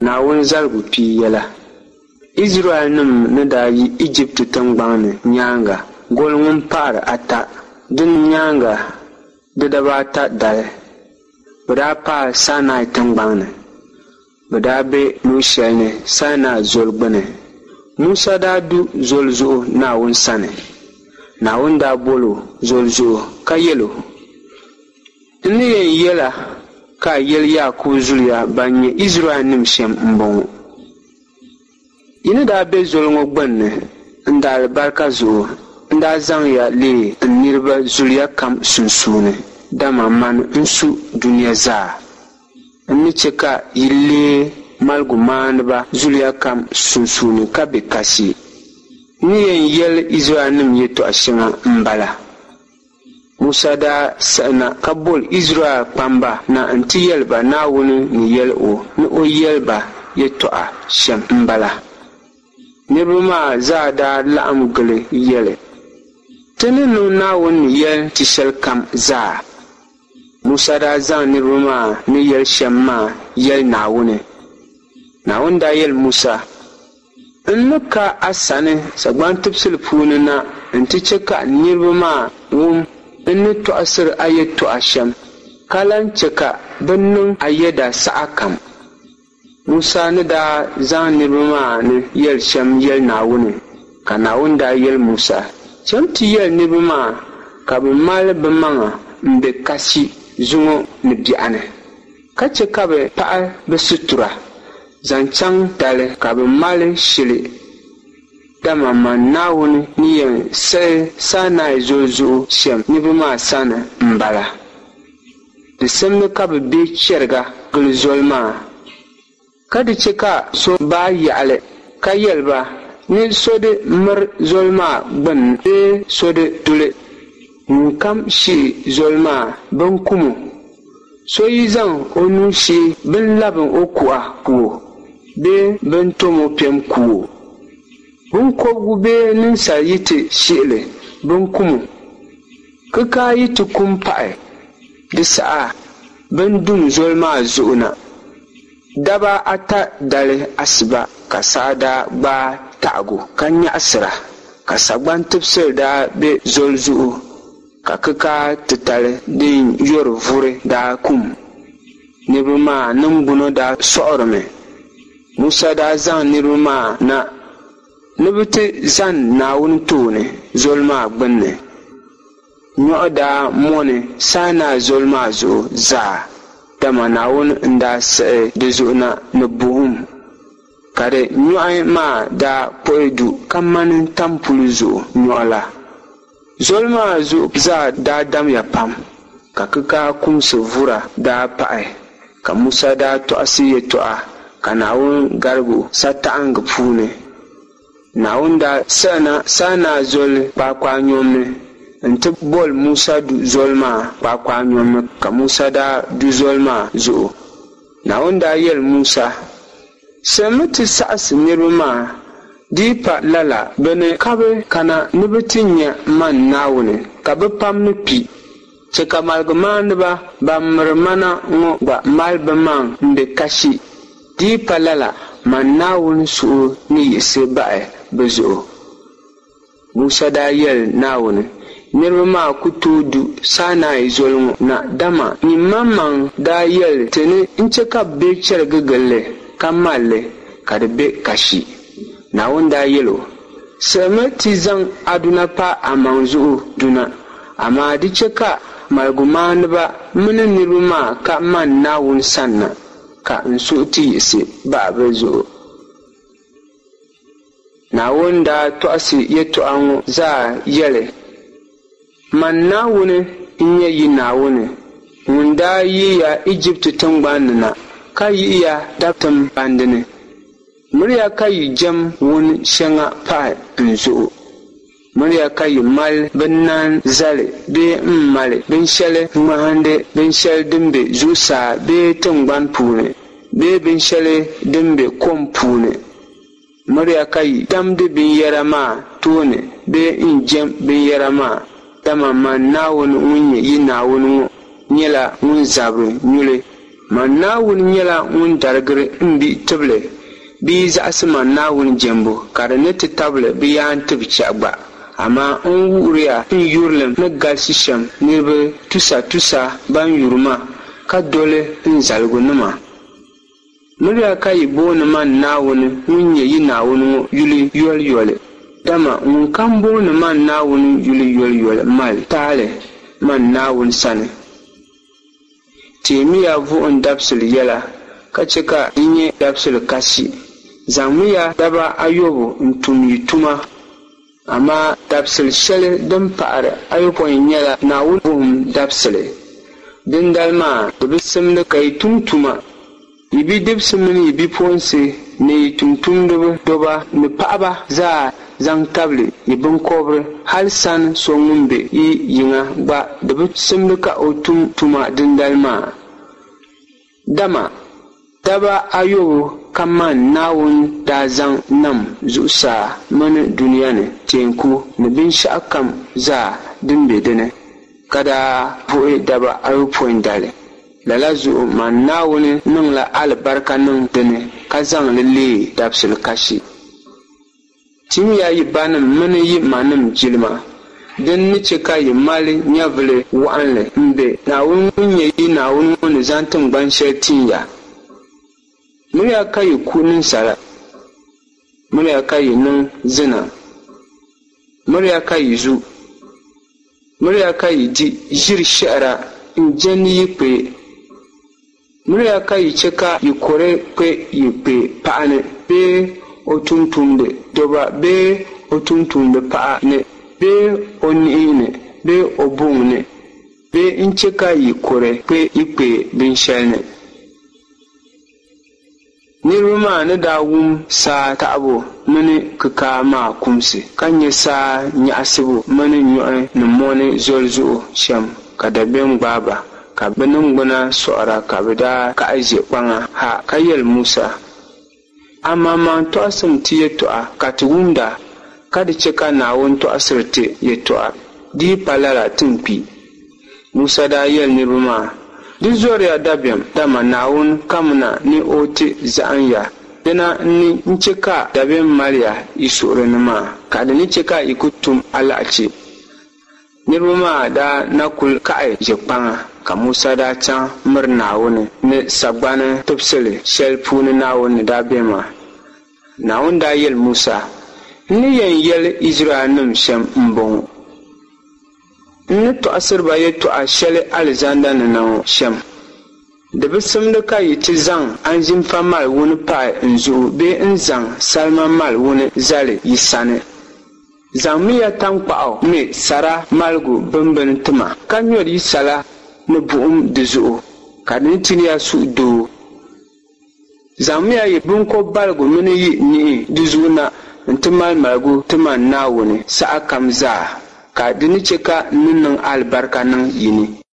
Naawuni zaligu pia yɛla. Izraɛlnim ni daa yi Ijipti tiŋgbɔŋ ni nyaaŋa goli ŋun pahir ata din nyaaŋa di daba ata dali, bɛ daa paai Sainai tiŋgbɔŋ ni. Bɛ daa be luɣ shɛli ni Sainai Zoli gbini. Musa daa du zoli zuɣu Naawuni sani. Naawuni daa bol o zoli zuɣu ka yɛl o, N ni yɛn yɛl a ka a yɛli Yaakubu zuliya ban nyɛ Izraɛlnim shɛm m-bɔŋɔ, Yi ni daa be zoli ŋɔ gbinni n daalibarika zuɣu, n daa zaŋ ya leei n niriba zuliya kam sunsuuni, dama mani n-su dunia zaa. N ni chɛ ka yi leei maligumaaniba zuliya kam sunsuuni ka be kasi. N ni yɛn yɛli Izraɛlnim yɛtɔɣ shɛŋa m-bala. Musa daa siɣina ka boli Izraɛl kpamba na nti yɛli ba Naawuni ni yɛl o ni o yɛli ba yɛtɔɣa shɛm m-bala. Niriba maa zaa daa laɣim gili yɛli, Ti ni niŋ Naawuni ni yɛli ti shɛlikam zaa. Musa daa zaŋ niriba maa ni yɛli shɛm maa yɛli Naawuni. Naawuni daa yɛli Musa, N ni ka a sani sagban tibisili puuni na nti chɛ ka niriba maa wum n ni tɔɣisir a yɛtɔɣa shɛm, ka lan chɛ ka bɛ niŋ a yɛda sahakam. Musa ni daa zaŋ niriba maa ni yɛli shɛm yɛli Naawuni, ka Naawuni daa yɛli Musa, Cham ti yɛli niriba maa ka bɛ mali bɛmaŋa m-be kasi zuŋɔ ni biɛɣuni. Ka chɛ ka bɛ paɣi bɛ situra zaŋ chaŋ dali ka bɛ mali shili, dama man Naawuni ni yɛn siɣi Sainai Zoli zuɣu shɛm niriba maa sani m-bala. Di simdi ka bɛ be chɛriga gili zoli maa. Ka di chɛ ka so baai yaɣili ka yɛli ba ni so di miri zoli maa gbini bee so di du li. Ŋunkam shihi zoli maa, bɛn kum o. So yi zaŋ o nuu shihi bɛn labim o kuɣa ku o bee bɛn tom o piɛm ku o. Biŋkɔbigu bee ninsal yi ti shihi li, bɛn kum o. Kikaa yi ti kum pahi di saha, bɛn dum zoli maa zuɣu na. Daba ata dali asiba ka saa daa gbaai taɣigu ka nyaɣisira, ka sagban tibisili daa be zoli zuɣu, ka kikaa titali din yɔri vuri daa kum. Niriba maa niŋgbuna daa sɔɣirimi. Musa daa zaŋ niriba maa na ni bɛ ti zani Naawuni tooni zoli maa gbinni. Nyɔɣu daa mɔni Sainai Zoli maa zuɣu zaa, dama Naawuni n-daa siɣi di zuɣu na ni buɣim, ka di nyɔɣu maa daa kpuɣi du kamani tampuli zuɣu nyɔɣu la. Zoli maa zuɣu zaa daa damya pam, ka kikaa kumsi vura daa pahi, ka Musa daa tɔɣisi yɛtɔɣa ka Naawuni garig o sataɣiŋga puuni. Naawuni daa siɣina Sainai Zoli kpaakpaanyom ni nti boli Musa du zoli maa kpaakpaanyom ni, ka Musa daa du zoli maa zuɣu. Naawuni daa yɛli Musa, Siɣimi ti saɣisi niriba maa, di yi pa lala bɛ ni kabi kana ni bɛ ti nya man Naawuni, ka bɛ pam ni kpi. Chɛ ka maligumaaniba ban miri ma na ŋɔ gba mali bɛmaŋ m-be kasi, di yi pa lala, man Naawuni suhu ni yiɣisi bahi bɛ zuɣu. Musa daa yɛli Naawuni, Niriba maa ku tooi du Sainai Zoli ŋɔ na, dama nyin maŋmaŋ daa yɛli ti ni n-chɛ ka bɛ be chɛrigi gili li ka mal li ka di be kasi. Naawuni daa yɛl o, Siɣimi ti zaŋ Aduna pa amaŋ zuɣu du na, amaa di chɛ ka maligumaaniba mini niriba maa ka man Naawuni sanna, ka n suhu ti yiɣisi bahi bɛ zuɣu. Naawuni daa tɔɣisi yɛtɔɣa ŋɔ zaa yɛli, Man Naawuni n-nyɛ yi Naawuni ŋun daa yihi ya Ijipti tiŋgbɔŋ ni na, ka yihi ya dabitim bandi ni. Miriya ka yi jɛm wun shɛŋa pahi n zuɣu. Miriya ka yi mali binnani zali bee m-mali binshɛli ŋmahindi binshɛli din be zuɣusaa bee tiŋgbani puuni bee binshɛli din be kom puuni. Miriya ka yi damdi binyɛra maa tooni bee n-jɛm binyɛra maa, dama man Naawuni ŋun nyɛ yi Naawuni ŋɔ nyɛla ŋun zabiri nyuli. Man Naawuni nyɛla ŋun darigiri m bihi tibili bɛ yi zaɣisi man Naawuni jɛmbu, ka di ni ti tabili bɛ yaantib chɛhi gba. Amaa n wuhiriya n yurilim ni galisi shɛm niriba tusatusa ban yuri ma ka doli n zaligunima. Miriya ka yi booni man Naawuni ŋun nyɛ yi Naawuni ŋɔ yuli yoliyoli, dama ŋunkam booni man Naawuni yuli yoliyoli mali taali man Naawuni sani. Teemiya Vuhim Dabisili yɛla, ka chɛ ka di nyɛ dabisili kasi. Zaŋmiya daba ayɔbu n-tum yi tuma, amaa dabisili shɛli din pahiri ayopɔin nyɛla Naawuni Vuhim Dabisili. Dindali maa di bi simdi ka yi tum tuma. Yi bidibisi mini yi bipuɣinsi ni yi tumtumdiba dɔba ni paɣiba zaa zaŋ tabili yi biŋkɔbiri, hal san so ŋun be yi yiŋa gba di bi simdi ka o tum tuma dindali maa. Dama daba ayɔbu ka man Naawuni daa zaŋ nam zuɣusaa mini dunia ni teeku ni binshɛɣukam zaa din be di ni, ka daa vuhi daba ayopɔin dali. Lala zuɣu man Naawuni niŋla alibarika niŋ di ni ka zaŋ li leei dabisili kashi. Timiya yi banim mini yi manim jilima, din ni chɛ ka yi mali nyɛvili wɔɣinli m-be Naawuni ŋun nyɛ yi Naawuni ŋɔ ni zaŋ tiŋgban shɛli tin ya. Miriya ka yi ku ninsala. Miriya ka yi niŋ zina. Miriya ka yi zu. Miriya ka yi di ʒiri shɛhira n-jɛndi yi kpee. Miriya ka yi chɛ ka yi kɔre kpe yi kpee paɣa ni bee o tumtumdi doba bee o tumtumdi paɣa ni bee o niɣi ni bee o buŋ ni bee n-chɛ ka yi kɔre kpe yi kpee binshɛli ni. Niriba maa ni daa wum saa taɣibu mini kikaa maa kumsi, ka nya saa nyaɣisibu mini nyɔhi ni mɔni zoli zuɣu shɛm, ka dabiɛm gbaai ba, ka bɛ niŋgbuna sɔɣira, ka bɛ daa kahi ʒe kpaŋa ha ka yɛli Musa, Amaŋmaŋ tɔɣisim ti yɛtɔɣa ka ti wumda, ka di chɛ ka Naawuni tɔɣisiri ti yɛtɔɣa, di yi pa lala ti ni kpi. Musa daa yɛli niriba maa, Di zɔriya dabiɛm, dama Naawuni kamina ni o ti zahim ya, dina n-ni n-chɛ ka dabiɛm mali ya yi suhuri ni maa, ka di ni chɛ ka yi ku tum alahichi. Niriba maa daa na kul kahi ʒe kpaŋa, ka Musa daa chaŋ miri Naawuni ni sagbani tibisili shɛli puuni Naawuni ni daa be maa. Naawuni daa yɛli Musa, N ni yɛn yɛli Izraɛlnim shɛm m-bɔŋɔ, N ni tɔɣisiri ba yɛtɔɣa shɛli alizanda ni na ŋɔ shɛm. Di bi simdi ka yi ti zaŋ anzinfa mali wuni pahi n zuɣu bee n-zaŋ salima mali wuni zali yi sani. Zaŋmiya taŋkpaɣu me sara maligu bimbini ti ma, ka nyɔri yi sala ni buɣim di zuɣu, ka di ni tin ya suhudoo. Zaŋmiya yi biŋkɔbbaligu mini yi niɣi di zuɣu na nti mali maligu ti man Naawuni sahakam zaa, ka di ni chɛ ka n ni niŋ alibarika niŋ yi ni.